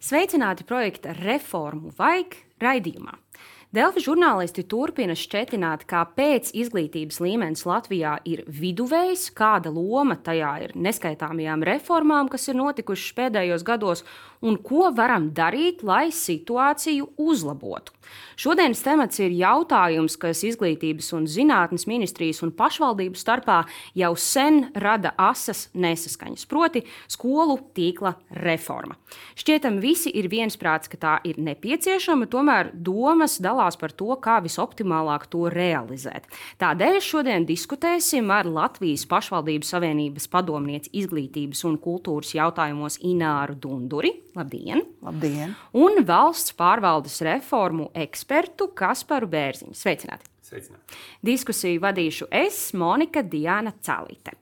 Sveicināti projekta Reformu vajag raidījumā. Delfi žurnālisti turpina šķetināt, kāpēc izglītības līmenis Latvijā ir viduvējs, kāda loma tajā ir neskaitāmajām reformām, kas ir notikušas pēdējos gados, un ko varam darīt, lai situāciju uzlabotu. Šodienas temats ir jautājums, kas Izglītības un zinātnes ministrijas un pašvaldību starpā jau sen rada asas nesaskaņas, proti skolu tīkla reforma. Šķietam visi ir viensprāts, ka tā ir nepieciešama, tomēr domas dalās par to, kā visoptimālāk to realizēt. Tādēļ šodien diskutēsim ar Latvijas pašvaldību savienības padomnieci izglītības un kultūras jautājumos Ināru Dunduri. Labdien! Labdien! Un valsts pārvaldes reformu ekspertu Kasparu Bērziņu. Sveicināti! Sveicināti! Diskusiju vadīšu es, Monika Diana Calīte.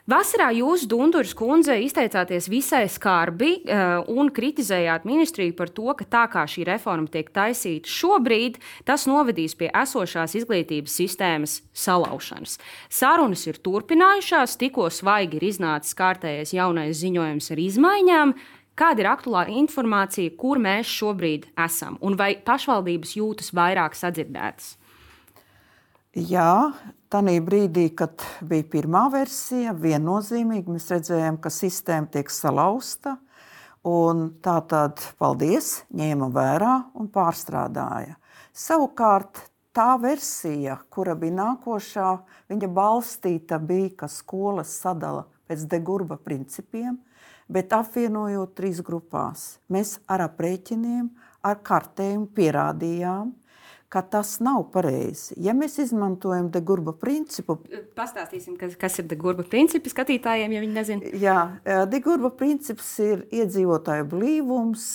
Vasarā jūs, Dunduras kundze, izteicāties visai skarbi un kritizējāt ministriju par to, ka tā kā šī reforma tiek taisīta šobrīd, tas novedīs pie esošās izglītības sistēmas salaušanas. Sarunas ir turpinājušās, tikko svaigi ir iznācis kārtējais jaunais ziņojums ar izmaiņām. Kāda ir aktuālā informācija, kur mēs šobrīd esam, un vai pašvaldības jūtas vairāk sadzirdētas? Jā, tanī brīdī, kad bija pirmā versija, viennozīmīgi mēs redzējām, ka sistēma tiek salauzta, un tātad, paldies, ņēma vērā un pārstrādāja. Savukārt, tā versija, kura bija nākošā, viņa balstīta bija, ka skolas sadala pēc de Gurba principiem, bet apvienojot 3 grupās. Mēs ar aprēķiniem, ar kartējumu pierādījām, ka tas nav pareizi. Ja mēs izmantojam de Gurba principu... Pastāstīsim, kas ir de Gurba principi skatītājiem, ja viņi nezina. Jā, de Gurba princips ir iedzīvotāju blīvums,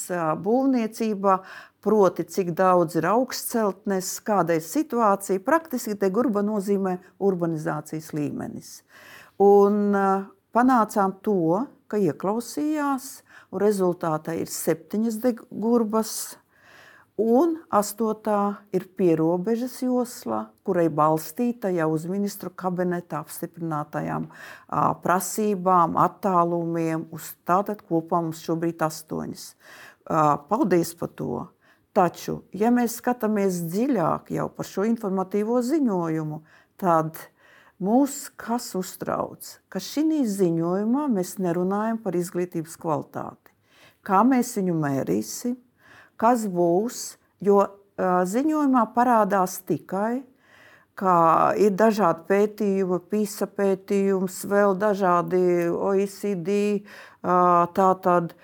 būvniecībā, proti, cik daudz ir augstceltnes, kāda ir situācija. Praktiski de Gurba nozīmē urbanizācijas līmenis. Un panācām to, ka ieklausījās, un rezultātā ir 7 de Gurbas, un 8. ir pierobežas josla, kurai balstīta jau uz ministru kabineta apstiprinātajām prasībām, attālumiem, uz tātad kopā mums šobrīd 8. Paldies par to. Taču, ja mēs skatāmies dziļāk jau par šo informatīvo ziņojumu, tad mūs kas uztrauc, ka šī ziņojumā mēs nerunājam par izglītības kvalitāti. Kā mēs viņu mērīsim? Kas būs, jo ziņojumā parādās tikai, ka ir dažādi pētījumi, PISA pētījums, vēl dažādi OECD, tātad,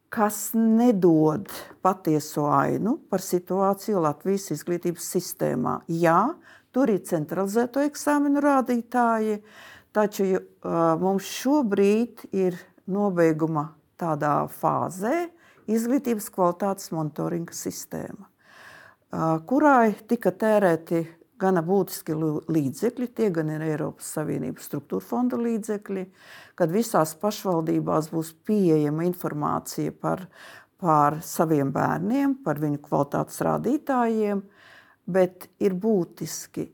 kas nedod patieso ainu par situāciju Latvijas izglītības sistēmā. Jā, tur ir centralizēto eksāmenu rādītāji, taču mums šobrīd ir nobeiguma tādā fāzē, izglītības kvalitātes monitoringa sistēma, kurai tika tērēti gana būtiski līdzekļi, tie gan ir Eiropas Savienības struktūra fonda līdzekļi, kad visās pašvaldībās būs pieejama informācija par saviem bērniem, par viņu kvalitātes rādītājiem, bet ir būtiski,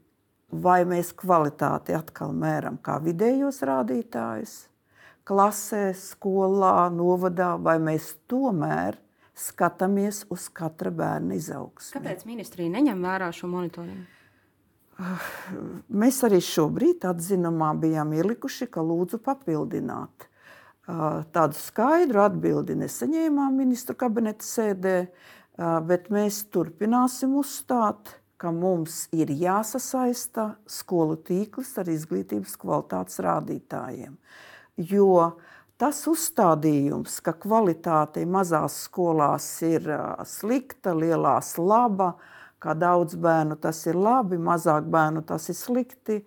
vai mēs kvalitāti atkal mēram kā vidējos rādītājus, klasē, skolā, novadā, vai mēs tomēr skatāmies uz katra bērna izaugsmi. Kāpēc ministrija neņem vērā šo monitoringu? Mēs arī šobrīd atzinumā bijām ielikuši, ka lūdzu papildināt. Tādu skaidru atbildi nesaņēmām ministru kabineta sēdē, bet mēs turpināsim uzstāt, ka mums ir jāsasaista skolu tīkls ar izglītības kvalitātes rādītājiem. Jo tas uzstādījums, ka kvalitāte mazās skolās ir slikta, lielās laba, kā daudz bērnu tas ir labi, mazāk bērnu tas ir slikti,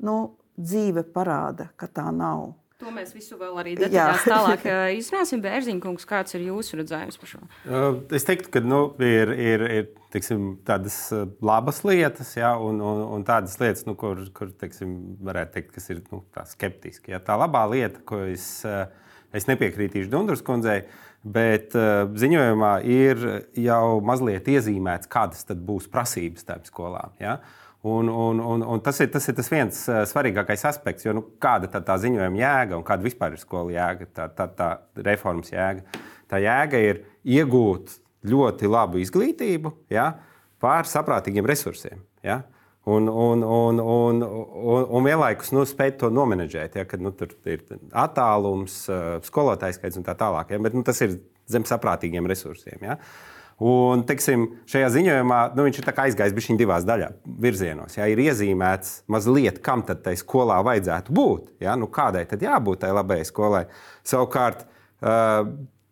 dzīve parāda, ka tā nav. To mēs visu vēl arī detaļās tālāk izrunāsim. Bērziņkungs, kāds ir jūsu redzējums par šo? Es teiktu, ka ir teiksim, tādas labas lietas, ja, un tādas lietas, kur teiksim, varētu teikt, kas ir tā skeptiski. Ja. Tā labā lieta, ko es nepiekrītīšu Dunduras kundzei, bet ziņojumā ir jau mazliet iezīmēts, kādas tad būs prasības tām skolām. Ja. Un tas ir tas viens svarīgākais aspekts, jo kāda tā ziņojuma jēga un kāda vispār ir skola jēga, tā reformas jēga. Tā jēga ir iegūt ļoti labu izglītību, ja, pār saprātīgiem resursiem. Ja. Un vienlaikus spēt to nomenedžēt, ja, kad tur ir attālums, skolotājs skaits un tā tālāk. Ja, bet tas ir zem saprātīgiem resursiem. Ja. Un, teiksim, šajā ziņojumā viņš ir aizgājis bišķiņ divās virzienos. Ja, ir iezīmēts mazliet, kam tad tai skolā vajadzētu būt. Ja, kādai tad jābūt tai labajai skolai. Savukārt,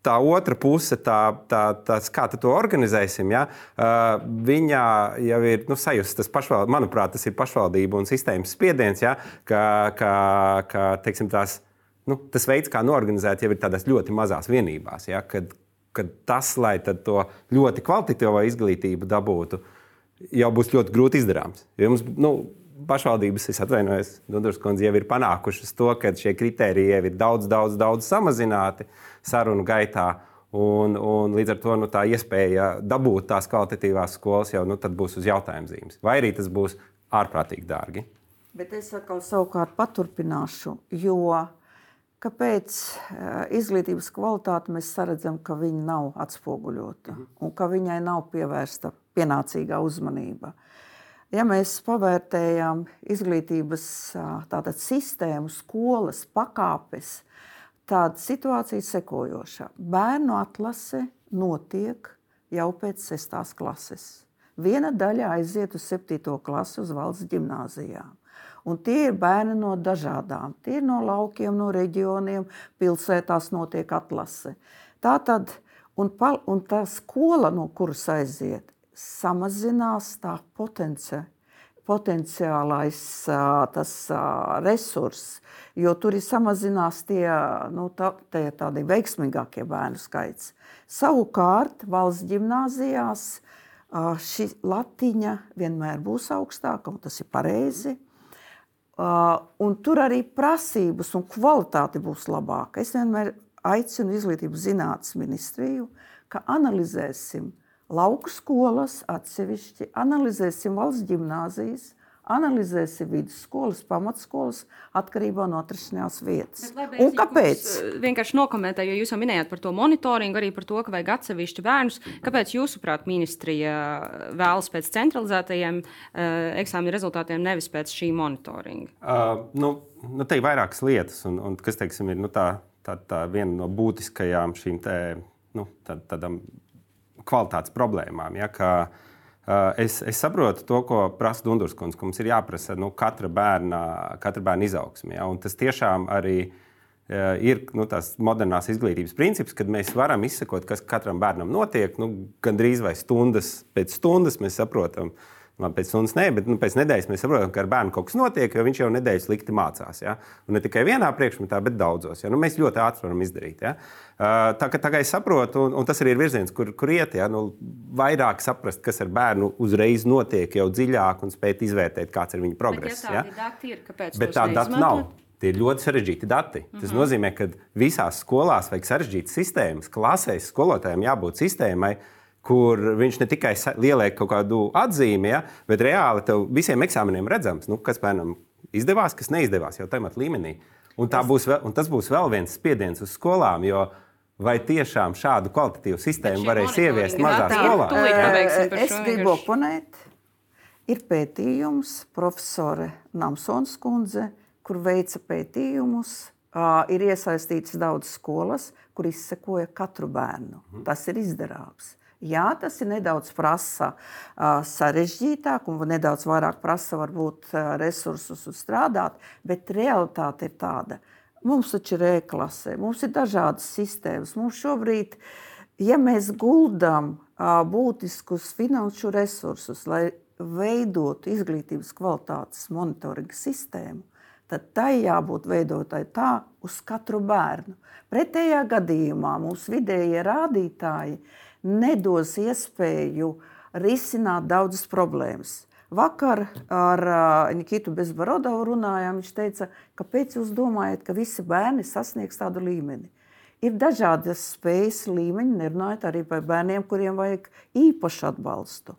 tā otra puse, kā to organizēsim, ja, viņā jau ir sajust tas manuprāt, tas ir pašvaldību un sistēmas spiediens, ja, ka teiksim, tas veids, kā noorganizēt, jau ir tādās ļoti mazās vienībās. Ja, kad tas, lai to ļoti kvalitatīvo izglītību dabūtu, jau būs ļoti grūti izdarāms. Jo mums, pašvaldības, es atvainojos, Dunduras kundze, jau ir panākušas to, ka šie kritēriji jau ir daudz samazināti sarunu gaitā. Un līdz ar to tā iespēja dabūt tās kvalitatīvās skolas jau tad būs uz jautājuma zīmes. Vai arī tas būs ārprātīgi dārgi. Bet es atkal savukārt paturpināšu, jo kāpēc izglītības kvalitāte mēs saredzam, ka viņa nav atspoguļota un ka viņai nav pievērsta pienācīgā uzmanība. Ja mēs pavērtējam izglītības sistēmu, skolas, pakāpes, tāda situācija sekojoša. Bērnu atlase notiek jau pēc 6. klases. Viena daļa aiziet uz 7. klasi uz valsts ģimnāzijām. Un tie ir bērni no dažādām. Tie ir no laukiem, no reģioniem, pilsētās notiek atlase. Tātad, un tā skola, no kuras aiziet, samazinās tā potenciālais resurs, jo tur ir samazinās tādi veiksmīgākie bērnu skaits. Savukārt, valsts ģimnāzijās šī latiņa vienmēr būs augstāka, un tas ir pareizi. Un tur arī prasības un kvalitāte būs labāka. Es vienmēr aicinu izglītības zinātnes ministriju, ka analizēsim lauku skolas atsevišķi, analizēsim valsts ģimnāzijas, analizēsim vidusskolas, pamatskolas atkarībā no atrašanās vietas. Un kāpēc? Vienkārši nokomentēju, jo jūs jau minējāt par to monitoringu, arī par to, ka vajag atsevišķi bērnus. Kāpēc jūsuprāt ministrija vēlas pēc centralizētajiem eksāmenu rezultātiem, nevis pēc šī monitoringa? Te ir vairākas lietas, un kas, teiksim, ir tā viena no būtiskajām šīm tādām kvalitātes problēmām. Ja, es saprotu to, ko prasa Dunduras kundze, ka mums ir jāprasa katra bērna izaugsme. Ja, un tas tiešām arī ir tās modernās izglītības princips, kad mēs varam izsekot, kas katram bērnam notiek. Gandrīz vai stundas pēc stundas mēs saprotam, pēc stundas ne, bet pēc nedēļas mēs saprotam, ka ar bērnu kaut kas notiek, jo viņš jau nedēļas slikti mācās. Ja? Un ne tikai vienā priekšmetā, bet daudzos. Ja? Mēs ļoti ātri varam izdarīt. Ja? Tā kā es saprotu, un tas arī ir virziens, kur iet, ja? Vairāk saprast, kas ar bērnu uzreiz notiek jau dziļāk un spēt izvērtēt, kāds ir viņa progress. Bet, ja tādi dati ir, kāpēc bet tādi dati nav. Tie ir ļoti sarežģīti dati. Tas nozīmē, ka visās skolās vajag sarežģītas sistēmas. Klasēs skolotājiem jābūt sistēmai, kur viņš ne tikai ieliek kaut kādu atzīmi, ja, bet reāli tev visiem eksāmeniem redzams, kas bērnam izdevās, kas neizdevās jau tajā līmenī. Un tas būs vēl viens spiediens uz skolām, jo vai tiešām šādu kvalitatīvu sistēmu varēs ieviest mazā skolā? Es gribu oponēt. Ir pētījums, profesore Namsons kundze, kur veica pētījumus. Ir iesaistīts daudz skolas, kur izsekoja katru bērnu. Tas ir izdarāms. Jā, tas ir nedaudz prasa sarežģītāk un nedaudz vairāk prasa varbūt resursus strādāt, bet realitāte ir tāda. Mums taču ir e-klasē, mums ir dažādas sistēmas. Mums šobrīd, ja mēs guldam būtiskus finanšu resursus, lai veidotu izglītības kvalitātes monitoringa sistēmu, tad tai jābūt veidotai tā uz katru bērnu. Pretējā gadījumā mums vidējie rādītāji nedos iespēju risināt daudzas problēmas. Vakar ar Nikitu Bezborodovu runājām, viņš teica, kāpēc jūs domājat, ka visi bērni sasniegs tādu līmeni? Ir dažādas spējas līmeņi, nerunājot arī par bērniem, kuriem vajag īpašu atbalstu.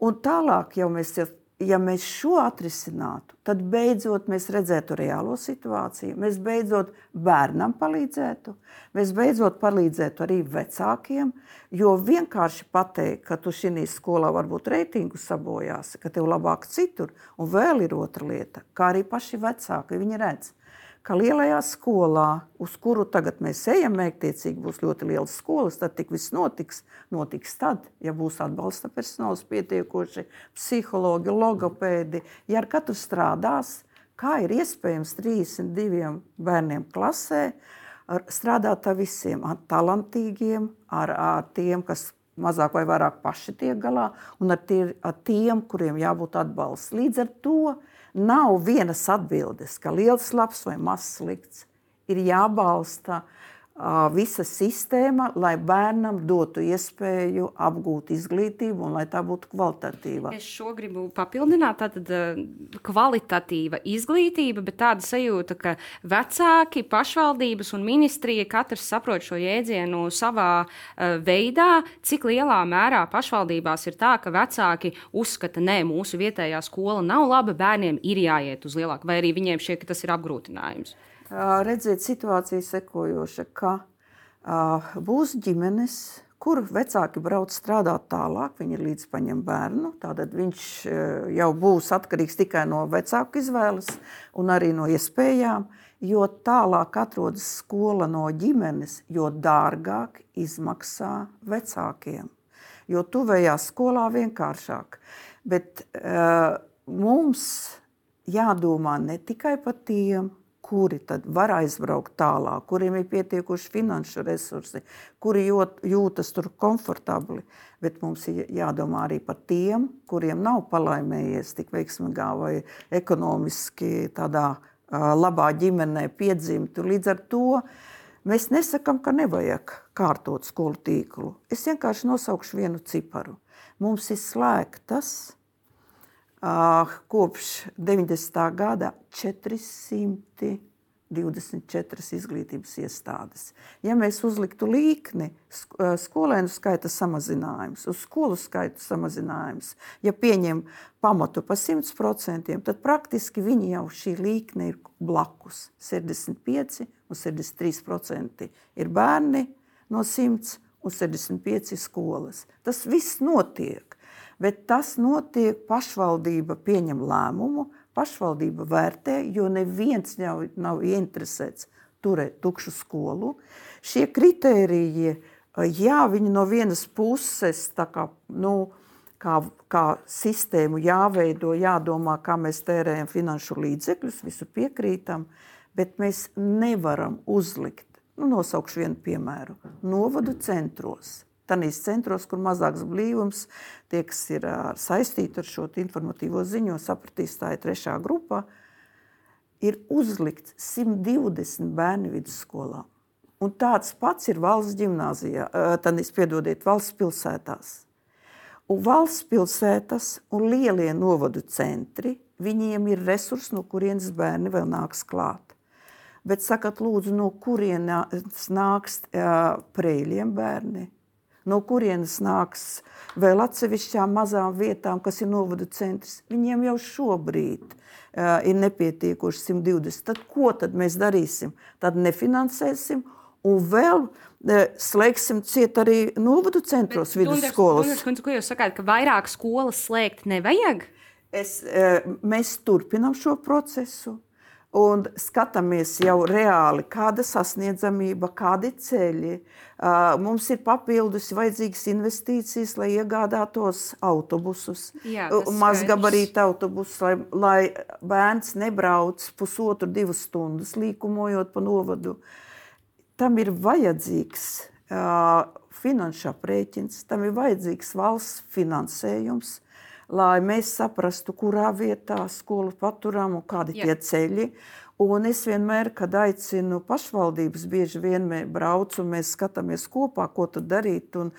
Un tālāk jau mēs ja mēs šo atrisinātu, tad beidzot mēs redzētu reālo situāciju, mēs beidzot bērnam palīdzētu, mēs beidzot palīdzētu arī vecākiem, jo vienkārši pateikt, ka tu šī skolā varbūt reitingu sabojāsi, ka tev labāk citur, un vēl ir otra lieta, kā arī paši vecāki, viņi redz, ka lielajā skolā, uz kuru tagad mēs ejam, mērķtiecīgi būs ļoti lielas skolas, tad tik viss notiks tad, ja būs atbalsta personāls pietiekoši, psihologi, logopēdi, ja ar katru strādās, kā ir iespējams 32 bērniem klasē, strādāt ar visiem, ar talantīgiem, ar tiem, kas mazāk vai vairāk paši tiek galā, un ar tiem, kuriem jābūt atbalsts. Līdz ar to nav vienas atbildes, ka liels labs vai mazs slikts. Ir jābalsta visa sistēma, lai bērnam dotu iespēju apgūt izglītību un lai tā būtu kvalitatīva. Es šo gribu papildināt, tātad kvalitatīva izglītība, bet tāda sajūta, ka vecāki, pašvaldības un ministrija katrs saprot šo jēdzienu savā veidā, cik lielā mērā pašvaldībās ir tā, ka vecāki uzskata, nē, mūsu vietējā skola nav laba, bērniem ir jāiet uz lielāku, vai arī viņiem šķiet, ka tas ir apgrūtinājums. Redzēt situāciju sekojoša, ka būs ģimenes, kur vecāki brauc strādāt tālāk, viņi ir līdz paņem bērnu, tātad viņš jau būs atkarīgs tikai no vecāku izvēles un arī no iespējām, jo tālāk atrodas skola no ģimenes, jo dārgāk izmaksā vecākiem, jo tuvējā skolā vienkāršāk. Bet mums jādomā ne tikai par tiem, kuri tad var aizbraukt tālāk, kuriem ir pietiekuši finanšu resursi, kuri jūtas tur komfortabli, bet mums ir jādomā arī par tiem, kuriem nav palaimējies tik veiksmīgā vai ekonomiski tādā labā ģimenē piedzimt. Līdz ar to mēs nesakam, ka nevajag kārtot skolu tīklu. Es vienkārši nosaukšu vienu ciparu. Mums ir slēgtas kopš 90. gada 424 izglītības iestādes. Ja mēs uzliktu līkni, skolēnu skaita samazinājums, uz skolu skaitu samazinājums, ja pieņem pamatu pa 100%, tad praktiski viņi jau šī līkne ir blakus. 65 un 63% ir bērni no 100 un 65 skolas. Tas viss notiek. Bet tas notiek, pašvaldība pieņem lēmumu, pašvaldība vērtē, jo neviens nav ieinteresēts turēt tukšu skolu. Šie kritēriji, jā, viņi no vienas puses tā kā sistēmu jāveido, jādomā, kā mēs tērējam finanšu līdzekļus, visu piekrītam, bet mēs nevaram uzlikt, nosaukšu vienu piemēru, novadu centros. Tanīs centros, kur mazāks blīvums, tie, kas ir saistīti ar šo informatīvo ziņu, sapratīs, tā ir 3. grupā, ir uzlikt 120 bērni vidusskolā. Un tāds pats ir valsts ģimnāzijā, valsts pilsētās. Un valsts pilsētas un lielie novadu centri, viņiem ir resursi, no kurienes bērni vēl nāks klāt. Bet sakat, lūdzu, no kurienes nāks Preļiem bērni? No kurienes nāks vēl atsevišķām mazām vietām, kas ir novadu centrs. Viņiem jau šobrīd ir nepietiekoši 120. Tad ko tad mēs darīsim? Tad nefinansēsim un vēl slēgsim ciet arī novadu centros vidusskolas. Ko jūs sakāt, ka vairāk skolas slēgt nevajag? Mēs turpinām šo procesu. Un skatāmies jau reāli, kāda sasniedzamība, kādi ceļi. Mums ir papildus vajadzīgas investīcijas, lai iegādātos autobusus, mazgabarīta autobusus, lai bērns nebrauc 1,5–2 stundas līkumojot pa novadu. Tam ir vajadzīgs finanšu aprēķins, tam ir vajadzīgs valsts finansējums, lai mēs saprastu, kurā vietā skolu paturam un kādi tie ceļi. Un es vienmēr, kad aicinu pašvaldības, bieži vien braucu un mēs skatāmies kopā, ko tad darīt. Un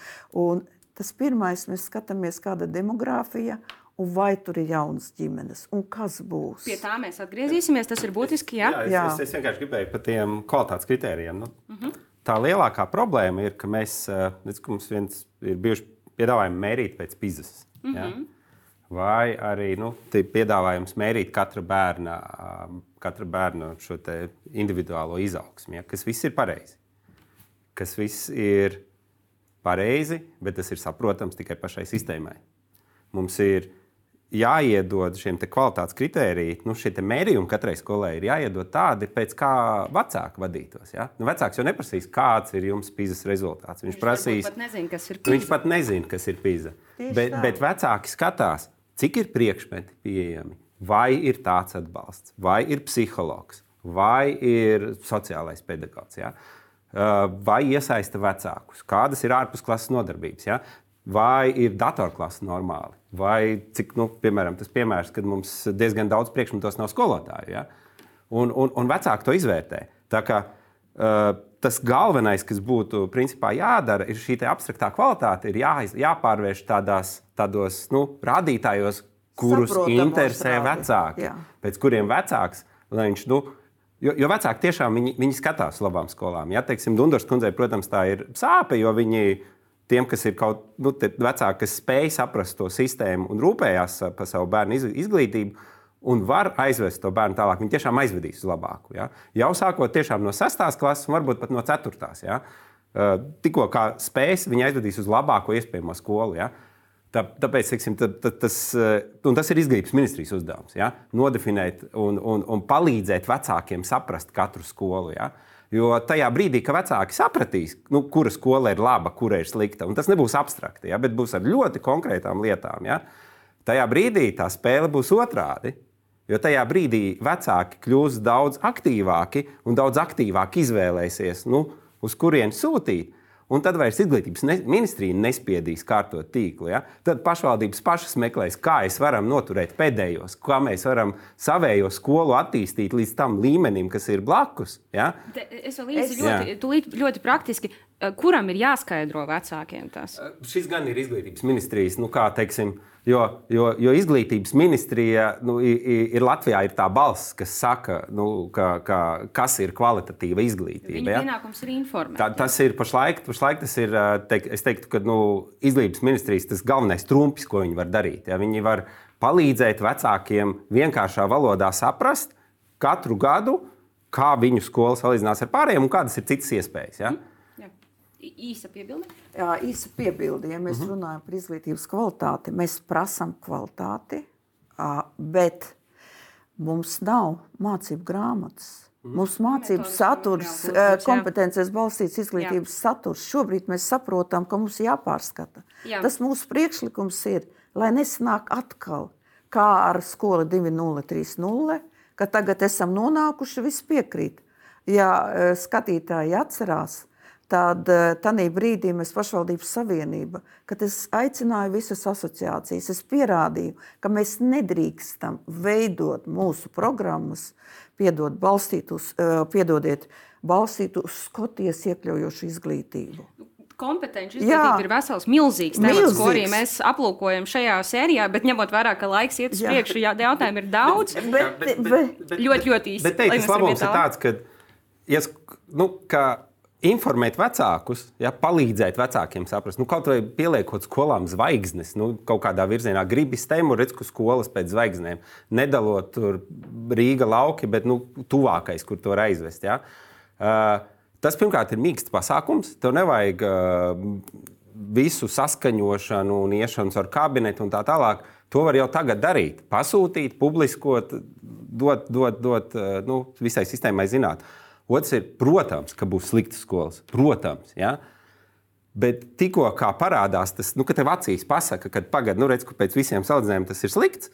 tas pirmais, mēs skatāmies, kāda demogrāfija un vai tur ir jaunas ģimenes un kas būs. Pie tā mēs atgriezīsimies, tas ir būtiski, jā? Es vienkārši gribēju par tiem kvalitātes kritērijiem. Tā lielākā problēma ir, ka mēs, mums viens ir bijuši piedāvājumi mērīt pēc PISA. vai arī piedāvājums mērīt katra bērna šo individuālo izaugsmi, ja, kas viss ir pareizi. Kas viss ir pareizi, bet tas ir saprotams tikai pašai sistēmai. Mums ir jāiedod šiem kvalitātes kritērijiem, šie mērījumi katrai skolai ir jāiedod tādi, pēc kā vecāki vadītos. Ja? Vecāks jau neprasīs, kāds ir jums PISA rezultāts. Viņš pat nezina, kas ir PISA. Viņš pat nezina, kas ir PISA. Bet vecāki skatās, cik ir priekšmeti pieejami, vai ir tāds atbalsts, vai ir psihologs, vai ir sociālais pedagogs, ja? Vai iesaista vecākus, kādas ir ārpusklases nodarbības. Ja? Vai ir datorklase normāli, vai cik, piemēram, tas piemērs, kad mums diezgan daudz priekšmetos nav skolotāju. Ja? Un vecāki to izvērtē. Tā kā tas galvenais, kas būtu principā jādara, ir šī abstraktā kvalitāte, ir jāpārvērš tādos rādītājos, kurus interesē vecāki. Jā. Pēc kuriem vecāks, lai viņš, jo vecāki tiešām viņi skatās uz labām skolām. Ja? Teiksim, Dundurs kundzei, protams, tā ir sāpe, jo viņi tiem, kas ir vecāki, kas spēj saprast to sistēmu un rūpējās par savu bērnu izglītību un var aizvest to bērnu tālāk, viņi tiešām aizvedīs uz labāku. Ja? Jau sākot tiešām no 6. klases un varbūt pat no 4. Ja? Tikko kā spēs, viņi aizvedīs uz labāko iespējamo skolu. Ja? Tāpēc tas ir izglītības ministrijas uzdevums. Ja? Nodefinēt un palīdzēt vecākiem saprast katru skolu. Ja? Jo tajā brīdī, kad vecāki sapratīs, kura skola ir laba, kura ir slikta, un tas nebūs abstrakti, ja, bet būs ar ļoti konkrētām lietām, ja, tajā brīdī tā spēle būs otrādi. Jo tajā brīdī vecāki kļūs daudz aktīvāki un daudz aktīvāk izvēlēsies, uz kurien sūtīt. Un tad vairs izglītības ministrija nespiedīs kārtot tīklu. Ja? Tad pašvaldības pašas meklēs, kā mēs varam noturēt pēdējos, kā mēs varam savējo skolu attīstīt līdz tam līmenim, kas ir blakus. Ja? Es vēl īsi ļoti praktiski, kuram ir jāskaidro vecākiem tas? Šis gan ir izglītības ministrijas, kā teiksim, jo izglītības ministrija ir Latvijā ir tā balss, kas saka, kas ir kvalitatīva izglītība. Viņa pienākums ir informēt. Tas ir pašlaik tas ir, es teiktu, ka izglītības ministrijas tas galvenais trumpis, ko viņi var darīt. Ja? Viņi var palīdzēt vecākiem vienkāršā valodā saprast katru gadu, kā viņu skola salīdzinās ar pārējiem un kādas ir citas iespējas. Ja? Īsa piebilde? Jā, īsa piebilde. Ja mēs runājam par izglītības kvalitāti, mēs prasām kvalitāti, bet mums nav mācību grāmatas. Mums mācību saturs, kompetences balstīts izglītības saturs. Šobrīd mēs saprotam, ka mums jāpārskata. Jā. Tas mūsu priekšlikums ir, lai nesanāk atkal, kā ar skolu 2.0, 3.0, ka tagad esam nonākuši, viss piekrīt. Ja skatītāji atcerās, tad tanī brīdī mēs pašvaldības savienība, kad es aicināju visas asociācijas, es pierādīju, ka mēs nedrīkstam veidot mūsu programmas, balstīt uz Skotijas iekļaujošu izglītību. Kompetenci izglītība ir vesels, milzīgs temats, ko arī mēs aplūkojam šajā sērijā, bet ņemot vērā, ka laiks iet uz priekšu, jautājumu ir daudz. Ļoti īsti. Bet tas labums ir tāds, ka informēt vecākus, palīdzēt vecākiem saprast, kaut vai pieliekot skolām zvaigznes, kaut kādā virzienā gribi stemu, redz, ka skolas pēc zvaigznēm, nedalot tur Rīga lauki, bet tuvākais, kur to var aizvest. Ja? Tas, pirmkārt, ir mīksts pasākums, tev nevajag visu saskaņošanu un iešanu ar kabinetu un tā tālāk. To var jau tagad darīt, pasūtīt, publiskot, dot visai sistēmai zināt. Otrs ir, protams, ka būs sliktas skolas. Protams, ja? Bet tikko kā parādās tas, ka tev acīs pasaka, ka redz, ka pēc visiem salīdzinājumiem tas ir slikts,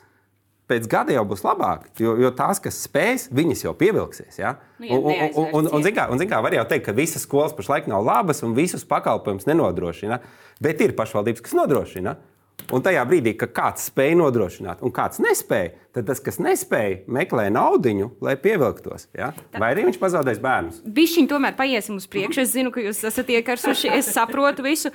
pēc gada jau būs labāk, jo tās, kas spēs, viņas jau pievilksies. Ja? Un zin kā, var jau teikt, ka visas skolas pašlaik nav labas un visus pakalpojumus nenodrošina, bet ir pašvaldības, kas nodrošina. Un tajā brīdī, kad kāds spēj nodrošināt un kāds nespēja, tad tas, kas nespēja, meklē naudiņu, lai pievilktos. Ja? Vai arī viņš pazaudēs bērnus? Bišķiņ tomēr paiesim uz priekšu. Es zinu, ka jūs esat iekarsuši, es saprotu visu.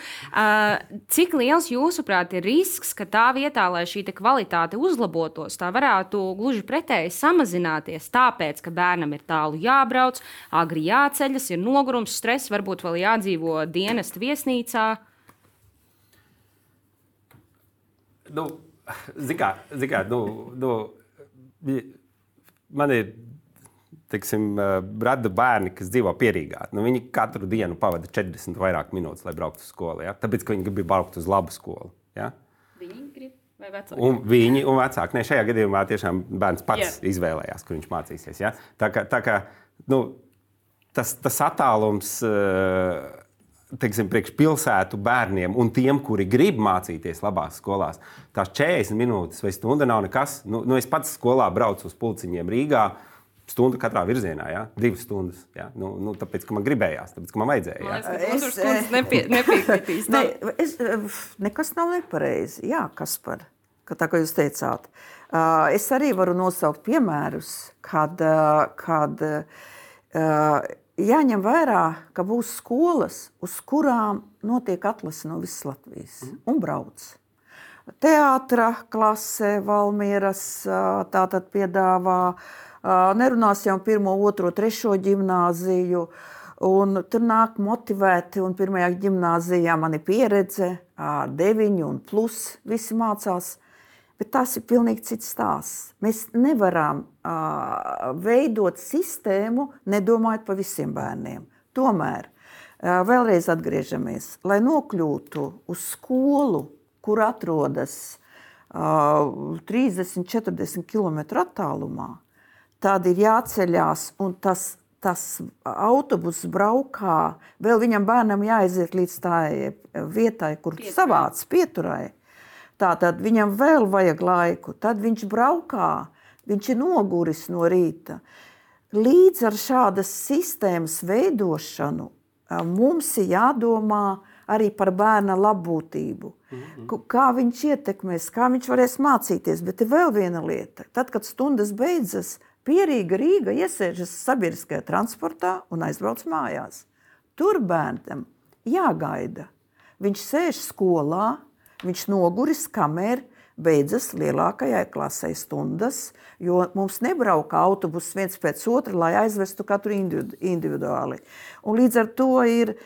Cik liels jūsuprāt ir risks, ka tā vietā, lai šī kvalitāte uzlabotos, tā varētu gluži pretēji samazināties, tāpēc, ka bērnam ir tālu jābrauc, agri jāceļas, ir nogurums, stress, varbūt vēl jādzīvo dienesta viesnīcā? man ir, teiksim, rada bērni, kas dzīvo Pierīgā. Viņi katru dienu pavada 40 vairāk minūtes, lai brauktu uz skolu. Ja? Tāpēc, ka viņi grib braukt uz labu skolu. Ja? Viņi grib vai vecāki? Un viņi un vecāki. Ne, šajā gadījumā tiešām bērns pats izvēlējās, kur viņš mācīsies. Ja? Tā kā tas attālums, teiksim, priekš pilsētu bērniem un tiem, kuri grib mācīties labās skolās, tās 40 minūtes vai stunda nav nekas. Es pats skolā braucu uz Pulciņiem Rīgā, stundu katrā virzienā, ja? 2 stundas. Ja? Tāpēc, ka man gribējās, tāpēc, ka man vajadzēja. Ja? Es nepiekritīs. Nekas nav nepareizi. Jā, Kaspar, tā kā jūs teicāt. Es arī varu nosaukt piemērus, kad jāņem vērā, ka būs skolas, uz kurām notiek atlase no visas Latvijas un brauc. Teātra klase Valmieras tātad piedāvā, nerunāsim 1., 2., 3. ģimnāziju, un tur nāk motivēti, un 1. ģimnāzijā man ir pieredze, 9 un plus, visi mācās, bet tas ir pilnīgi cits stāsts. Mēs nevaram veidot sistēmu, nedomājot par visiem bērniem. Tomēr, vēlreiz atgriežamies, lai nokļūtu uz skolu, kur atrodas 30-40 km attālumā, tad ir jāceļās, un tas autobus braukā, vēl viņam bērnam jāaiziet līdz tā vietai, kur savāc pieturai. Tātad viņam vēl vajag laiku, tad viņš braukā, viņš ir noguris no rīta. Līdz ar šādas sistēmas veidošanu mums ir jādomā arī par bērna labbūtību. Kā viņš ietekmēs, kā viņš varēs mācīties, bet ir vēl viena lieta. Tad, kad stundas beidzas, Pierīga Rīga iesēžas sabiedriskajā transportā un aizbrauc mājās. Tur bērnam jāgaida. Viņš sēž skolā, viņš noguris, kamēr beidzas lielākajai klasei stundas, jo mums nebrauka autobus viens pēc otra, lai aizvestu katru individuāli. Un līdz ar to ir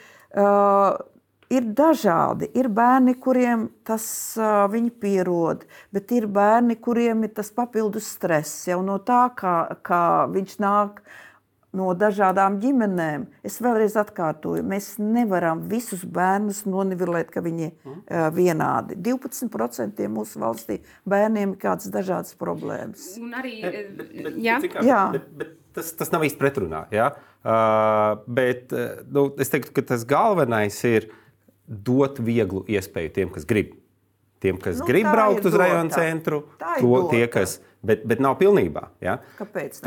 dažādi. Ir bērni, kuriem tas viņi pierod, bet ir bērni, kuriem ir tas papildus stress. Jau no tā, kā viņš nāk no dažādām ģimenēm. Es vēlreiz atkārtoju, mēs nevaram visus bērnus nonivelēt, ka viņi vienādi. 12% mūsu valstī bērniem ir kādas dažādas problēmas. Un arī, bet tas nav īsti pretrunā. Ja? Bet es teiktu, ka tas galvenais ir dot vieglu iespēju tiem, kas grib. Tiem, kas grib braukt uz rajonu centru, bet nav pilnībā. Ja? Kāpēc?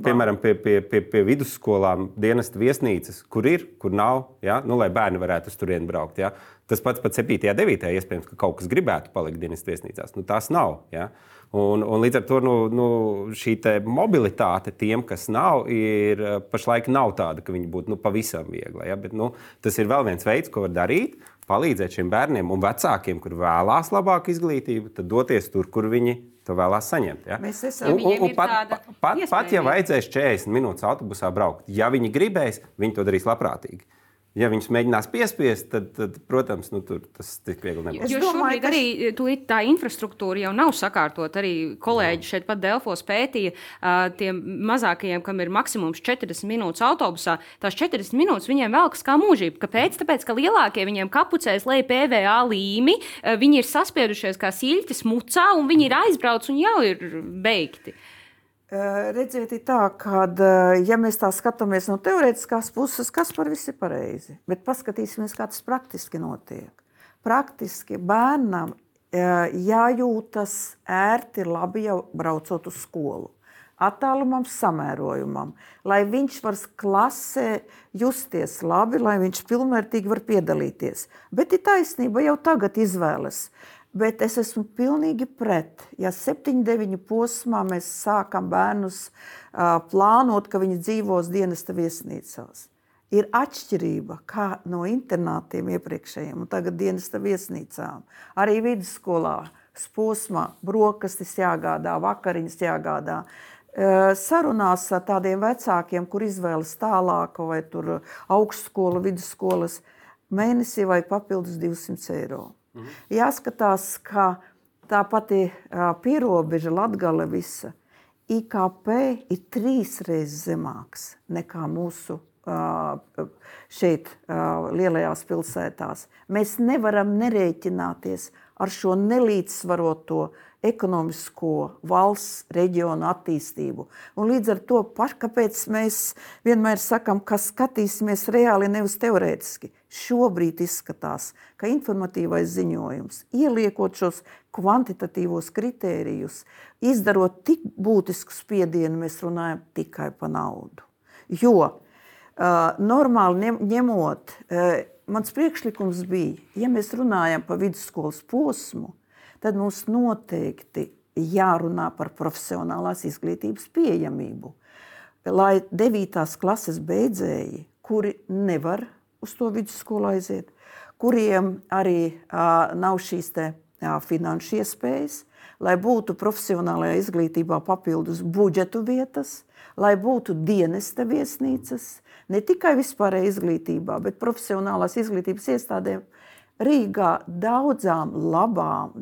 Piemēram, pie vidusskolām dienesta viesnīcas, kur ir, kur nav, ja? Lai bērni varētu uz turieni braukt. Ja? Tas pats 7. 9. iespējams, ka kaut kas gribētu palikt dienesta viesnīcās. Tas nav. Ja? Un līdz ar to šī mobilitāte tiem, kas nav, pašlaik nav tāda, ka viņi būtu pavisam viegla. Ja? Bet, tas ir vēl viens veids, ko var darīt, palīdzēt šiem bērniem un vecākiem, kur vēlās labāku izglītību, tad doties tur, kur viņi to vēlās saņemt. Ja? Pat ja vajadzēs 40 minūtes autobusā braukt, ja viņi gribēs, viņi to darīs labprātīgi. Ja viņus mēģinās piespiest, tad protams, tur tas tik viegli nebūs. Jo šobrīd arī tā infrastruktūra jau nav sakārtot. Arī kolēģi šeit pat Delfos pētīja tiem mazākajiem, kam ir maksimums 40 minūtes autobusā. Tās 40 minūtes viņiem velkas kā mūžība. Kāpēc? Tāpēc, ka lielākie viņiem kapucēs lej PVA līmi, viņi ir saspiedušies kā siļķis mucā un viņi ir aizbrauc un jau ir beigti. Redziet, ir tā, ka, ja mēs tā skatāmies no teorētiskās puses, kas par visu ir pareizi, bet paskatīsimies, kā tas praktiski notiek. Praktiski bērnam jājūtas ērti labi jau braucot uz skolu. Attālumam, samērojumam, lai viņš var klasē justies labi, lai viņš pilnvērtīgi var piedalīties. Bet ir taisnība, jau tagad izvēles. Bet es esmu pilnīgi pret, ja 7-9 posmā mēs sākam bērnus plānot, ka viņi dzīvos dienesta viesnīcās. Ir atšķirība kā no internātiem iepriekšējiem un tagad dienesta viesnīcām. Arī vidusskolā posmā brokastis jāgādā, vakariņas jāgādā. Sarunās ar tādiem vecākiem, kur izvēlas tālāku vai tur augstskolu, vidusskolas, mēnesī vai papildus 200 eiro. Jāskatās, ka tā pati pierobeža Latgale visa, IKP ir 3 reizes zemāks nekā mūsu šeit lielajās pilsētās. Mēs nevaram nerēķināties ar šo nelīdzsvaroto ekonomisko valsts reģionu attīstību. Un līdz ar to, kāpēc mēs vienmēr sakam, ka skatīsimies reāli, nevis teorētiski. Šobrīd izskatās, ka informatīvais ziņojums, ieliekot šos kvantitatīvos kritērijus, izdarot tik būtisku spiedienu, mēs runājam tikai par naudu. Jo normāli ņemot, mans priekšlikums bija, ja mēs runājam par vidusskolas posmu, tad mums noteikti jārunā par profesionālās izglītības pieejamību. Lai 9. klases beidzēji, kuri nevar uz to vidusskolu aiziet, kuriem arī nav šīs finanšu iespējas, lai būtu profesionālajā izglītībā papildus budžetu vietas, lai būtu dienesta viesnīcas, ne tikai vispārējā izglītībā, bet profesionālās izglītības iestādēm. Rīgā daudzām labām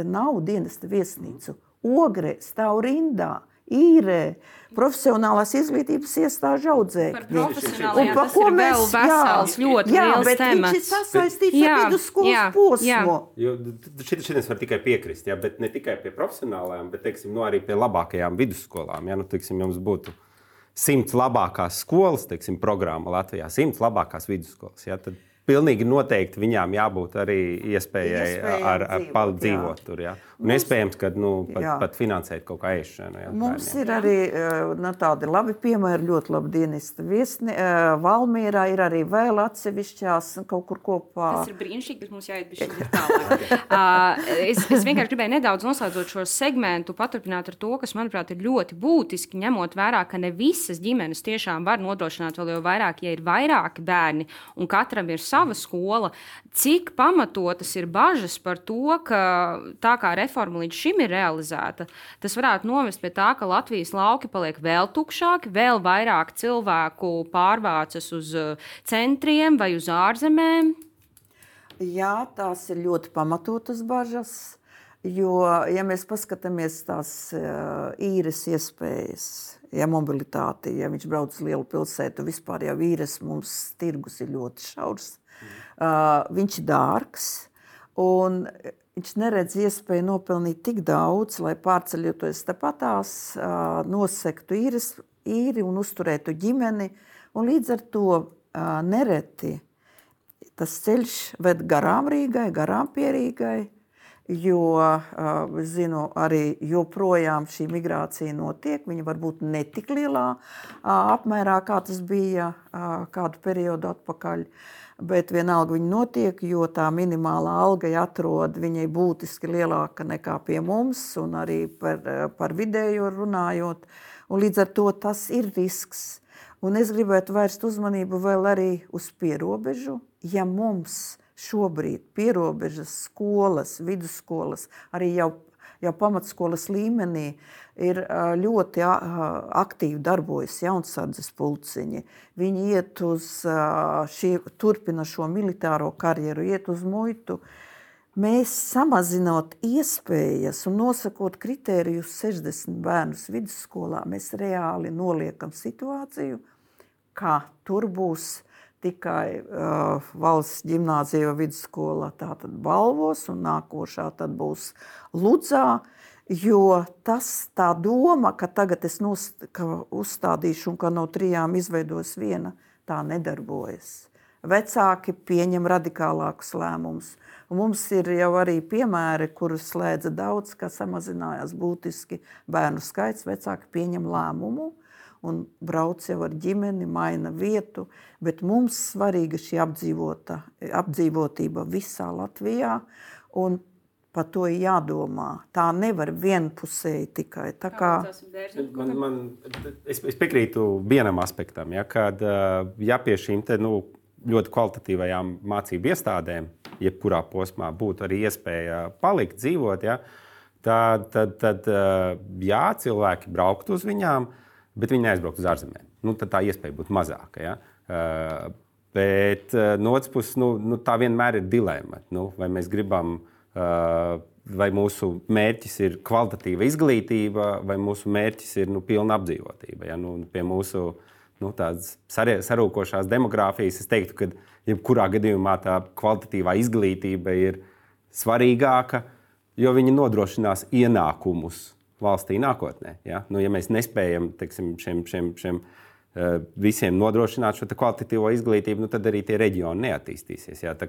nav dienesta viesnīcu. Ogrē stāv rindā, Īrē, profesionālās izglītības iestāžu audzēkņi. Par profesionālajām tas ir vēl vesels, ļoti liels temats. Jā, bet viņš ir sasaistīts ar vidusskolas posmu. Šitien var tikai piekrist, bet ne tikai pie profesionālajām, bet teiksim, arī pie labākajām vidusskolām. Teiksim, jums būtu 100 labākās skolas, teiksim, programma Latvijā, 100 labākās vidusskolas. Tad pilnīgi noteikti viņām jābūt arī iespējai ar dzīvot tur. Un iespējams, ka pat finansēt kaut kā ēšanu. Mums ir arī tādi labi piemēri, ļoti labi dienesta viesni. Valmierā ir arī vēl atsevišķās kaut kur kopā. Tas ir brīnišķīgi, bet mums jāiet bišķi tālāk. Es vienkārši gribēju nedaudz noslēdzot šo segmentu, paturpināt ar to, kas, manuprāt, ir ļoti būtiski, ņemot vērā, ka ne visas ģimenes tiešām var nodrošināt vēl jau vairāk, ja ir vairāki bērni un katram ir sava skola. Cik pamatotas ir bažas par to, ka tā kā reforma līdz šim ir realizēta, tas varētu novest pie tā, ka Latvijas lauki paliek vēl tukšāki, vēl vairāk cilvēku pārvācas uz centriem vai uz ārzemēm? Jā, tās ir ļoti pamatotas bažas, jo, ja mēs paskatāmies tās īres iespējas, mobilitāti, ja viņš brauc uz lielu pilsētu, vispār jau īres mums tirgus ir ļoti šaurs. Viņš ir dārgs, un viņš neredz iespēju nopelnīt tik daudz, lai pārceļoties tepatās, nosektu īri un uzturētu ģimeni. Un līdz ar to nereti tas ceļš ved garām Rīgai, garām pie Rīgai, jo, zinu, arī joprojām šī migrācija notiek. Viņa varbūt ne tik lielā apmērā, kā tas bija kādu periodu atpakaļ. Bet vienalga viņa notiek, jo tā minimālā alga atrod viņai būtiski lielāka nekā pie mums, un arī par vidējo runājot. Un līdz ar to tas ir risks. Un es gribētu vērst uzmanību vēl arī uz pierobežu. Ja mums šobrīd pierobežas skolas, vidusskolas, arī jau pamatskolas līmenī ir ļoti aktīvi darbojas jaunsardzes pulciņi. Viņi iet uz turpina šo militāro karjeru, iet uz muitu. Mēs samazinot iespējas un nosakot kritērijus 60 bērnus vidusskolā, mēs reāli noliekam situāciju, kā tur būs tikai valsts ģimnāzija vidusskola tātad Balvos un nākošā tad būs Ludzā, jo tā doma, ka tagad es uzstādīšu un ka no 3 izveidos viena, tā nedarbojas. Vecāki pieņem radikālākus lēmumus. Un mums ir jau arī piemēri, kurus slēdza daudz, ka samazinājās būtiski bērnu skaits, vecāki pieņem lēmumu un brauc jau ar ģimeni, maina vietu, bet mums svarīga šī apdzīvotība visā Latvijā, un par to ir jādomā. Tā nevar vienpusēji tikai. Tā kā... Es piekrītu vienam aspektam, kad pie šīm ļoti kvalitatīvajām mācību iestādēm, jebkurā posmā būtu arī iespēja palikt, dzīvot, tad cilvēki brauktu uz viņām, bet viņi neaizbraukt uz ārzemēm. Tad tā iespēja būtu mazāka. Bet no otras puses, tā vienmēr ir dilemma. Vai mēs gribam vai mūsu mērķis ir kvalitatīva izglītība, vai mūsu mērķis ir pilna apdzīvotība. Ja? Pie mūsu tādas sarūkošās demogrāfijas es teiktu, ka jebkurā gadījumā tā kvalitatīvā izglītība ir svarīgāka, jo viņi nodrošinās ienākumus valstī nākotnē. Ja, ja mēs nespējam šiem visiem nodrošināt šo kvalitatīvo izglītību, tad arī tie reģioni neattīstīsies. Ja, tā,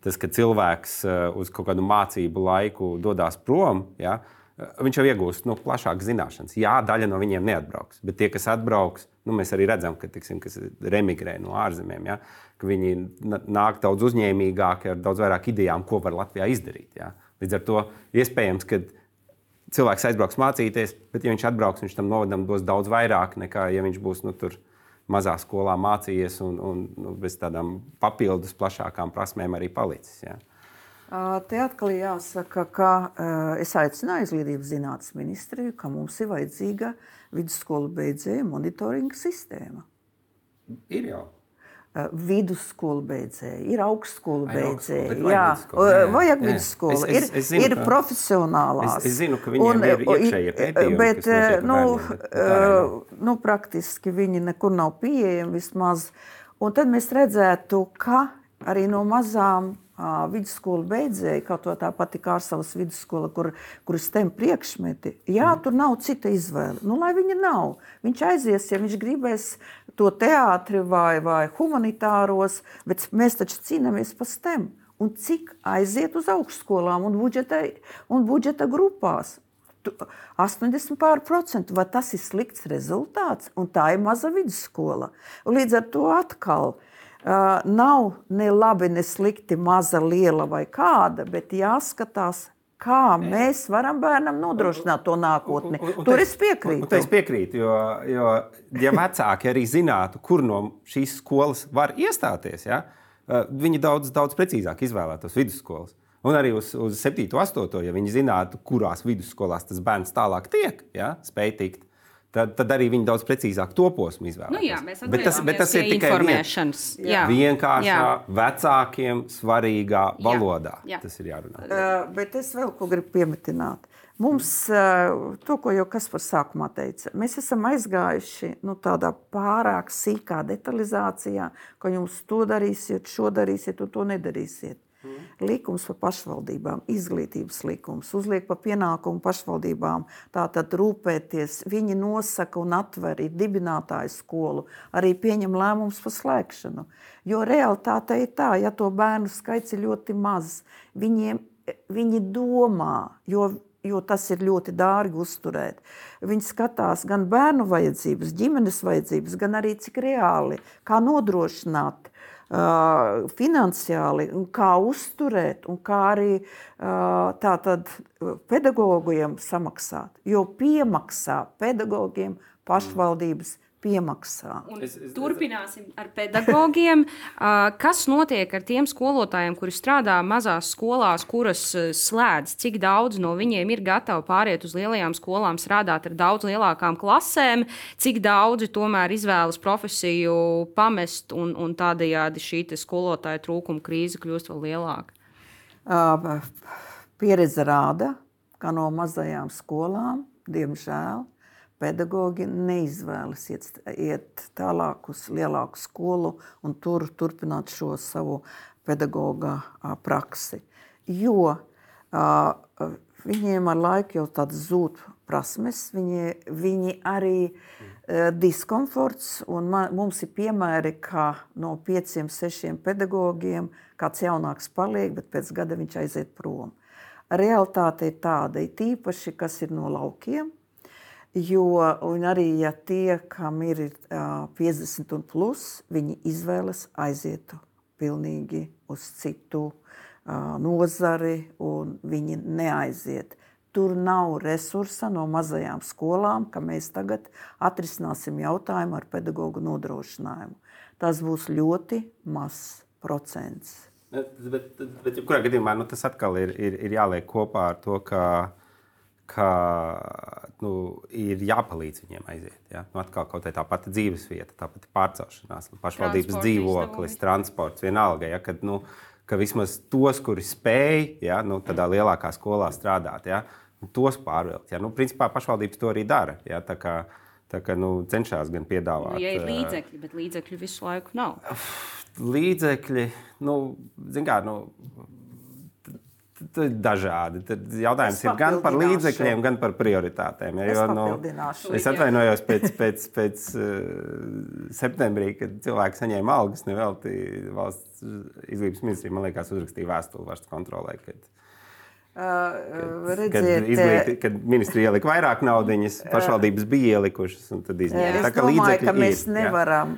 tas, ka cilvēks uz kaut kādu mācību laiku dodas prom, ja, viņš jau iegūst plašākas zināšanas. Jā, daļa no viņiem neatbrauks, bet tie, kas atbrauks, mēs arī redzam, ka kas remigrē no ārzemēm, ja, ka viņi nāk daudz uzņēmīgāki ar daudz vairāk idejām, ko var Latvijā izdarīt. Ja. Līdz ar to iespējams, ka cilvēks aizbrauks mācīties, bet ja viņš atbrauks, viņš tam novadam dos daudz vairāk nekā, ja viņš būs tur mazā skolā mācījies un bez tādām papildus plašākām prasmēm arī palicis. Ja. Te atkal jāsaka, ka es aicināju Izglītības zinātnes ministriju, ka mums ir vajadzīga vidusskolu beidzēju monitoringa sistēma. Ir jau. Vidusskolu beidzēji, ir augstskolu beidzēji, vajag vidusskolu, ir profesionālās. Es zinu, ka viņiem ir iekšējie pētījumi, bet, praktiski viņi nekur nav pieejami vismaz. Un tad mēs redzētu, ka arī no mazām vidusskolu beidzēji, kaut to tā pati Kārsavas vidusskola, kur STEM priekšmeti, tur nav cita izvēle. Lai viņa nav. Viņš aizies, ja viņš gribēs to teātri vai humanitāros, bet mēs taču cīnāmies par STEM. Un cik aiziet uz augstskolām un budžeta grupās? 80%. Vai tas ir slikts rezultāts? Un tā ir maza vidusskola. Un līdz ar to atkal nav ne labi, ne slikti, maza, liela vai kāda, bet jāskatās, kā mēs varam bērnam nodrošināt to nākotni. Tur es piekrītu. Es piekrītu, jo ja vecāki arī zinātu, kur no šīs skolas var iestāties, ja, viņi daudz precīzāk izvēlētos vidusskolas. Un arī uz 7. 8. ja viņi zinātu, kurās vidusskolās tas bērns tālāk tiek, ja, spēj tikt, tad arī viņi daudz precīzāk to posmu izvēlētos. Bet tas ir tikai vienkāršā, vecākiem svarīgā valodā. Tas ir jārunā. Bet es vēl ko gribu piemetināt. Mums, to, ko jau Kaspars sākumā teica, mēs esam aizgājuši tādā pārāk sīkā detalizācijā, ka jums to darīsiet, šo darīsiet un to nedarīsiet. Likums par pašvaldībām, izglītības likums, uzliek par pienākumu pašvaldībām, tātad rūpēties, viņi nosaka un atver, ir dibinātāju skolu, arī pieņem lēmumus par slēgšanu. Jo realitāte ir tā, ja to bērnu skaits ir ļoti maz, viņi domā, jo tas ir ļoti dārgi uzturēt. Viņi skatās gan bērnu vajadzības, ģimenes vajadzības, gan arī cik reāli, kā nodrošināt finansiāli, un kā uzturēt, un kā arī tātad pedagogiem samaksāt. Jo piemaksā pedagogiem pašvaldības piemaksā. Turpināsim ar pedagogiem. Kas notiek ar tiem skolotājiem, kuri strādā mazās skolās, kuras slēdz? Cik daudz no viņiem ir gatavi pāriet uz lielajām skolām, strādāt ar daudz lielākām klasēm? Cik daudzi tomēr izvēlas profesiju pamest un tādējādi šī skolotāja trūkuma krīze kļūst vēl lielāka? Pieredze rāda, ka no mazajām skolām, diemžēl, pedagogi neizvēlas iet tālāk uz lielāku skolu un tur turpināt šo savu pedagoga praksi. Jo viņiem ar laiku jau tāds zūd prasmes, viņi arī diskomforts, un mums ir piemēri, ka no 5-6 pedagogiem kāds jaunāks paliek, bet pēc gada viņš aiziet prom. Realitāte ir tāda, ir tīpaši, kas ir no laukiem, un arī, ja tie, kam ir 50 un plus, viņi izvēlas aizietu pilnīgi uz citu nozari, un viņi neaiziet. Tur nav resursa no mazajām skolām, ka mēs tagad atrisināsim jautājumu ar pedagogu nodrošinājumu. Tas būs ļoti mazs procents. Bet kurā gadījumā tas atkal ir jāliek kopā ar to, ka ir jāpalīdz viņiem aiziet. Ja? Atkal kaut tā pati dzīvesvieta, tā pati pārcelšanās, pašvaldības dzīvoklis, transports, vienalga. Ja? Kad, ka vismaz tos, kuri spēj, ja, tādā lielākā skolā strādāt, ja, tos pārvilkt. Ja. Principā pašvaldības to arī dara. Ja, tā kā cenšas gan piedāvāt. Ja ir līdzekļi, bet līdzekļu visu laiku nav. Līdzekļi, zin kā, dažādi. Tad jautājums ir gan par līdzekļiem, gan par prioritātēm. Ja, es atvainojos pēc septembrī, kad cilvēki saņēma algas, nevelti valsts izglītības ministrija, man liekas, uzrakstīja vēstuli valsts kontrolē, kad ministrija ielika vairāk naudiņas, pašvaldības bija ielikušas. Tad izņēma. Es domāju, ka mēs nevaram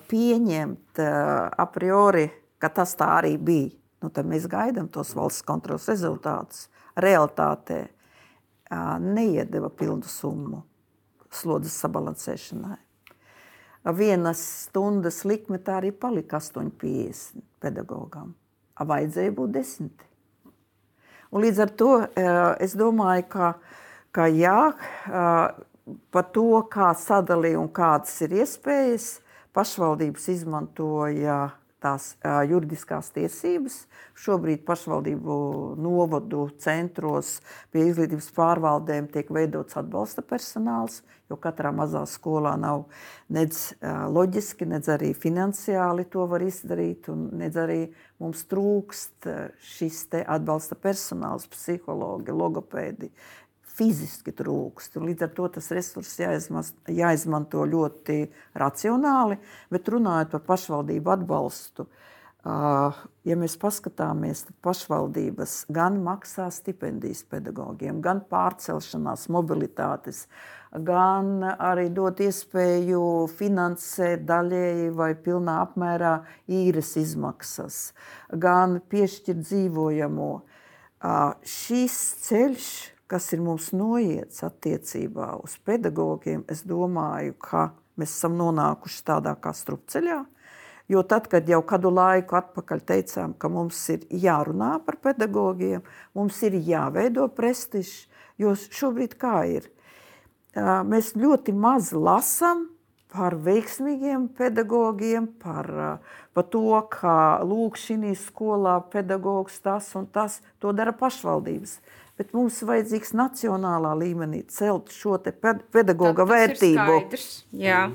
pieņemt a priori, ka tas tā arī bija. Tad mēs gaidām tos valsts kontroles rezultātus. Realitātē neiedeva pilnu summu slodzes sabalansēšanai. Vienas stundas likme tā arī palika 8,50 pedagogam. Vajadzēja būt 10. Un līdz ar to es domāju, ka jā, par to, kā sadalīja un kādas ir iespējas, pašvaldības izmantoja tās juridiskās tiesības. Šobrīd pašvaldību novadu centros pie izglītības pārvaldēm tiek veidots atbalsta personāls, jo katrā mazā skolā nav nedz loģiski, nedz arī finansiāli to var izdarīt, un nedz arī mums trūkst šis te atbalsta personāls, psihologi, logopēdi. Fiziski trūkst. Līdz ar to tas resurss jāizmanto ļoti racionāli, bet runājot par pašvaldību atbalstu, ja mēs paskatāmies, tad pašvaldības gan maksā stipendijas pedagogiem, gan pārcelšanās mobilitātes, gan arī dot iespēju finansēt daļēji vai pilnā apmērā īres izmaksas, gan piešķirt dzīvojamo. Šis ceļš, kas ir mums noiets attiecībā uz pedagogiem, es domāju, ka mēs esam nonākuši tādā kā strupceļā, jo tad, kad jau kādu laiku atpakaļ teicām, ka mums ir jārunā par pedagogiem, mums ir jāveido prestižs, jo šobrīd kā ir? Mēs ļoti maz lasam par veiksmīgiem pedagogiem, par to, ka lūk šī skolā pedagogs tas un tas, to dara pašvaldības. Bet mums vajadzīgs nacionālā līmenī celt šo te pedagoga vērtību. Tas ir skaidrs, jā.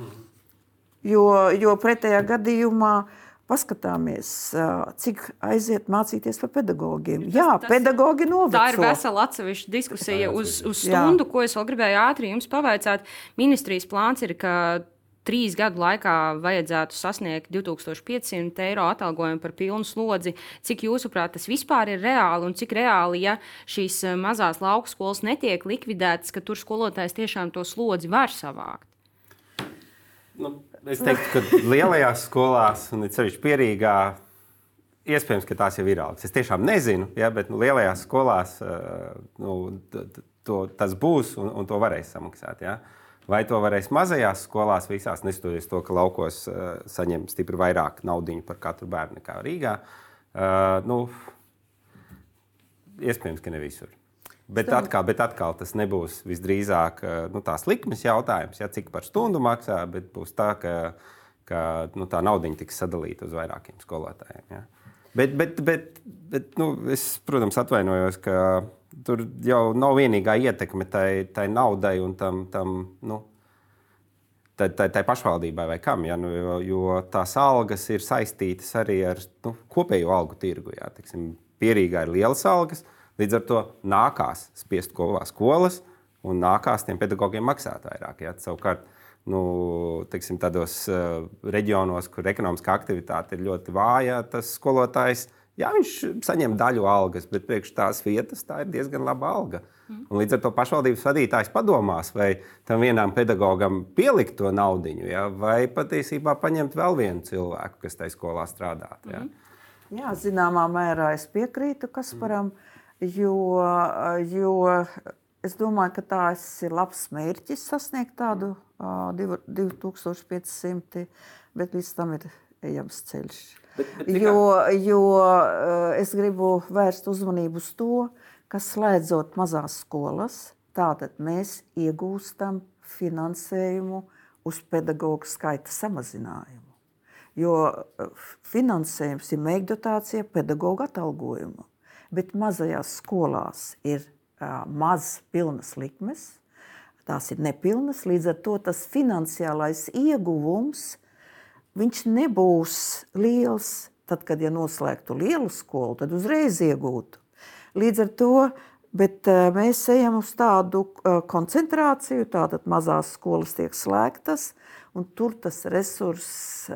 Jo pretējā gadījumā paskatāmies, cik aiziet mācīties par pedagogiem. Pedagogi noveco. Tā ir vesela atsevišķa diskusija uz stundu, ko es vēl gribēju ātri jums pavaicāt. Ministrijas plāns ir, ka 3 gadu laikā vajadzētu sasniegt 2500 eiro atalgojumu par pilnu slodzi. Cik jūsuprāt tas vispār ir reāli un cik reāli, ja šīs mazās lauku skolas netiek likvidētas, ka tur skolotājs tiešām to slodzi var savākt? Es teiktu, ka lielajās skolās, un it sevišķi Pierīgā, iespējams, ka tās jau ir algas. Es tiešām nezinu, ja, bet lielajās skolās tas būs un to varēs samaksāt. Ja. Vai to varēs mazajās skolās visās, neskatoties to, ka laukos saņem stipri vairāk naudiņu par katru bērnu nekā Rīgā? Iespējams, ka ne visur. Bet atkal tas nebūs visdrīzāk tās likmes jautājums, ja, cik par stundu maksā, bet būs tā, ka tā naudiņa tiks sadalīta uz vairākiem skolotājiem. Ja. Bet es, protams, atvainojos, ka tur jau nav vienīgā ietekme tai naudai un tai pašvaldībai vai kam, ja, jo tās algas ir saistītas arī ar kopējo algu tirgu. Ja. Teiksim, Pierīgā ir lielas algas, līdz ar to nākās spiest kopā skolas un nākās tiem pedagogiem maksāt vairāk. Ja. Savukārt, teiksim, tādos reģionos, kur ekonomiskā aktivitāte ir ļoti vāja, tas skolotājs, jā, viņš saņem daļu algas, bet priekš tās vietas tā ir diezgan laba alga. Un līdz ar to pašvaldības vadītājs padomās, vai tam vienam pedagogam pielikt to naudiņu, ja, vai patiesībā paņemt vēl vienu cilvēku, kas tai skolā strādāt. Ja. Jā, zināmā mērā es piekrītu Kasparam, jo es domāju, ka tās ir labs mērķis sasniegt tādu 2500, bet līdz tam ir ejams ceļš. Jo es gribu vērst uzmanību uz to, ka slēdzot mazās skolas, tātad mēs iegūstam finansējumu uz pedagogu skaita samazinājumu. jo finansējums ir mēģdotācija pedagoga atalgojumu. Bet mazajās skolās ir maz pilnas likmes, tās ir nepilnas, līdz ar to tas finansiālais ieguvums, viņš nebūs liels. Tad, kad noslēgtu lielu skolu, tad uzreiz iegūtu. Līdz ar to, bet mēs ejam uz tādu koncentrāciju, tātad mazās skolas tiek slēgtas, un tur tas resurss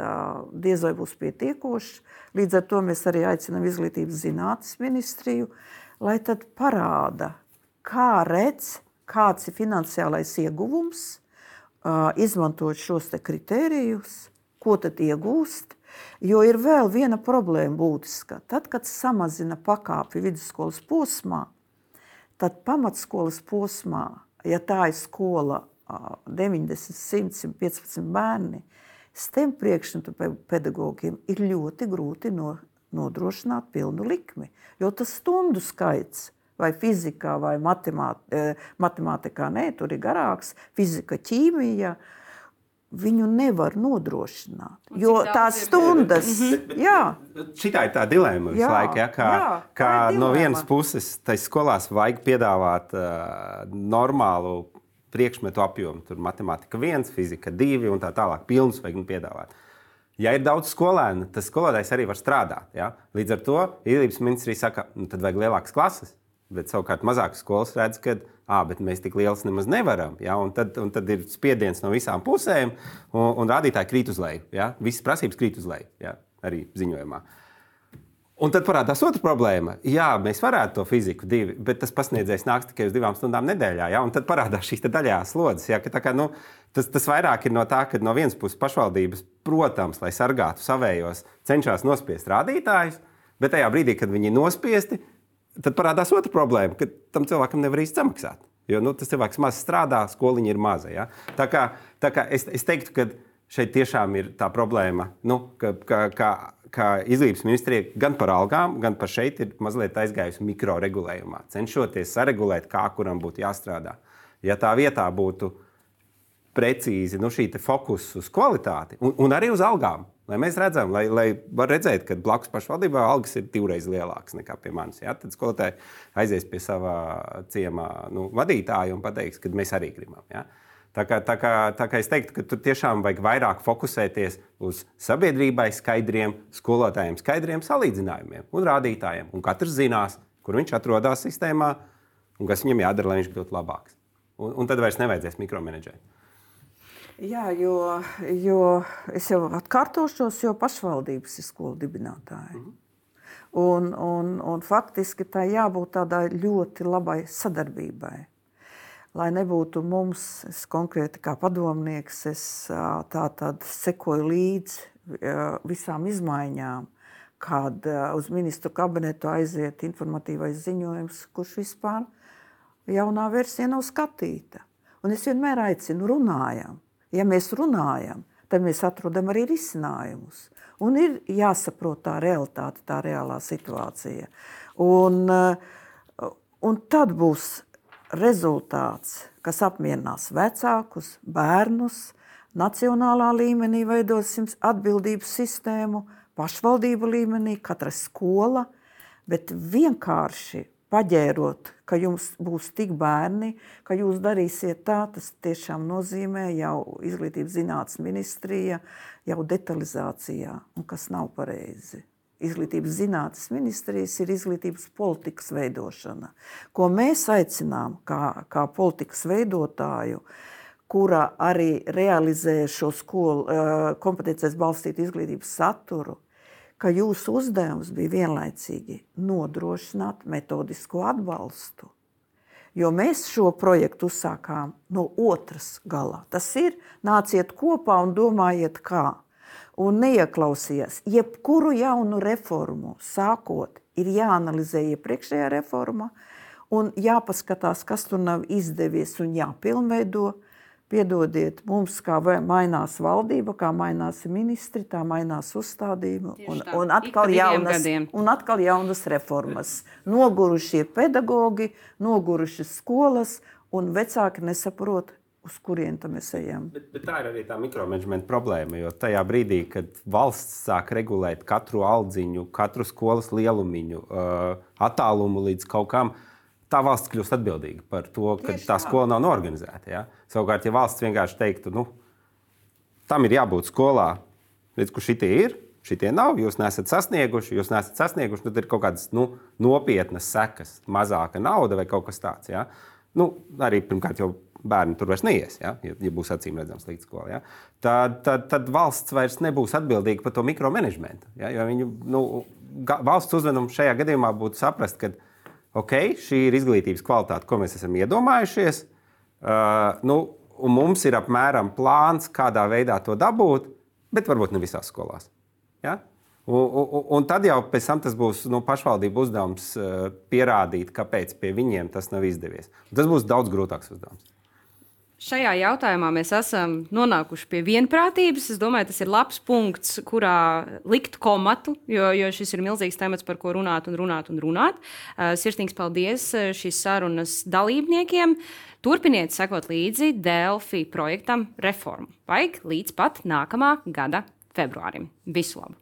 diez vai būs pietiekošs. Līdz ar to mēs arī aicinām Izglītības zinātnes ministriju, lai tad parāda, kā redz, kāds ir finansiālais ieguvums, izmantot šos te kritērijus, ko tad iegūst. Jo ir vēl viena problēma būtiska. Tad, kad samazina pakāpi vidusskolas posmā, tad pamatskolas posmā, ja tā ir skola 90, 100, 115 bērni, STEM priekšmetu pedagogiem ir ļoti grūti nodrošināt pilnu likmi. Jo tas stundu skaits, vai fizikā, vai matemātikā, tur ir garāks, fizika, ķīmija, viņu nevar nodrošināt, jo tās stundas, Šitā ir tā dilēma visu laiku, kā no vienas puses tai skolās vajag piedāvāt normālu priekšmetu apjomu, tur matemātika 1, fizika 2 un tā tālāk, pilnus vajag piedāvāt. Ja ir daudz skolēnu, tas skolotājs arī var strādāt, Līdz ar to Izglītības ministrija saka, tad vajag lielākas klases, bet savukārt mazākas skolas redz, ka bet mēs tik lielas nemaz nevaram. Un tad ir spiediens no visām pusēm, un rādītāji krīt uz leju. Visas prasības krīt uz leju, arī ziņojumā. Un tad parādās otra problēma. Mēs varētu to fiziku 2, bet tas pasniedzējs nāks tikai uz 2 stundām nedēļā. Un tad parādās šīs daļās slodzes. Tas vairāk ir no tā, ka no vienas puses pašvaldības, protams, lai sargātu savējos, cenšas nospiest rādītājus, bet tajā brīdī, kad viņi ir nospiesti, tad parādās otra problēma, ka tam cilvēkam nevar īsti samaksāt. Jo tas cilvēks maz strādā, skoliņa ir maza. Tā kā es teiktu, ka šeit tiešām ir tā problēma, ka Izglītības ministrija gan par algām, gan par šeit ir mazliet aizgājusi mikroregulējumā, cenšoties saregulēt, kā kuram būtu jāstrādā. Ja tā vietā būtu precīzi šī fokus uz kvalitāti un arī uz algām, lai mēs redzam, lai var redzēt, ka blakus pašvaldībā algas ir 2 reizes lielākas nekā pie manis. Tad skolotāji aizies pie savā ciemā vadītāja un pateiks, ka mēs arī gribam. Tā kā es teiktu, ka tur tiešām vajag vairāk fokusēties uz sabiedrībai skaidriem, skolotājiem skaidriem salīdzinājumiem un rādītājiem. Un katrs zinās, kur viņš atrodas sistēmā un kas viņam jādara, lai viņš kļūtu labāks. Un tad vairs nevajadzēs mikromenedžēt. Jo es jau atkārtošos, jo pašvaldības ir skolu dibinātāji. Un faktiski tā jābūt tādai ļoti labai sadarbībai. Lai nebūtu mums, es konkrēti kā padomnieks, es tātad sekoju līdzi visām izmaiņām, kad uz ministru kabinetu aiziet informatīvais ziņojums, kurš vispār jaunā versija nav skatīta. Un es vienmēr aicinu runājam. Ja mēs runājam, tad mēs atrodam arī risinājumus. Un ir jāsaprot tā realitāte, tā reālā situācija. Un tad būs rezultāts, kas apmierinās vecākus, bērnus, nacionālā līmenī veidosim atbildības sistēmu, pašvaldību līmenī, katra skola, bet vienkārši paģērot, ka jums būs tik bērni, ka jūs darīsiet tā, tas tiešām nozīmē jau Izglītības zinātnes ministrija, jau detalizācijā, un kas nav pareizi. Izglītības zinātnes ministrijas ir izglītības politikas veidošana, ko mēs aicinām kā politikas veidotāju, kura arī realizē šo skolu kompetencēs balstītu izglītības saturu, ka jūsu uzdevums bija vienlaicīgi nodrošināt metodisko atbalstu. Jo mēs šo projektu uzsākām no otras galā. Tas ir nāciet kopā un domājiet kā. Un neieklausījies. Jebkuru jaunu reformu sākot ir jāanalizē iepriekšējā reforma un jāpaskatās, kas tur nav izdevies un jāpilnveido. Piedodiet, mums kā mainās valdība, kā mainās ministri, tā mainās uzstādījumi un atkal jaunas reformas. Nogurušie pedagogi, nogurušas skolas un vecāki nesaprot, uz kurien mēs ejam. Bet tā ir arī tā mikromanagementa problēma, jo tajā brīdī, kad valsts sāk regulēt katru aldziņu, katru skolas lielumiņu, attālumu līdz kaut kam, tā valsts kļūst atbildīga par to, ka tā skola nav norganizēta. Ja? Savukārt, ja valsts vienkārši teiktu, tam ir jābūt skolā, redz, kur šitie ir, šitie nav, jūs neesat sasnieguši, tad ir kaut kādas nopietnas sekas, mazāka nauda vai kaut kas tāds. Ja? Arī pirmkārt jau bērni tur vairs neies, ja būs acīm redzams līdz skolai. Ja? Tad valsts vairs nebūs atbildīga par to mikromanagementu. Ja? Jo viņu, valsts uzvedums šajā gadījumā būtu saprast, ka šī ir izglītības kvalitāte, ko mēs esam iedomājušies, un mums ir apmēram plāns, kādā veidā to dabūt, bet varbūt ne visās skolās. Ja? Un tad jau pēc tam tas būs pašvaldību uzdevums pierādīt, kāpēc pie viņiem tas nav izdevies. Un tas būs daudz grūtāks uzdevums. Šajā jautājumā mēs esam nonākuši pie vienprātības. Es domāju, tas ir labs punkts, kurā likt komatu, jo šis ir milzīgs temats, par ko runāt. Sirsnīgs paldies šīs sarunas dalībniekiem. Turpiniet sekot līdzi Delfi projektam Reformu. Vajag līdz pat nākamā gada februārim. Visu labu!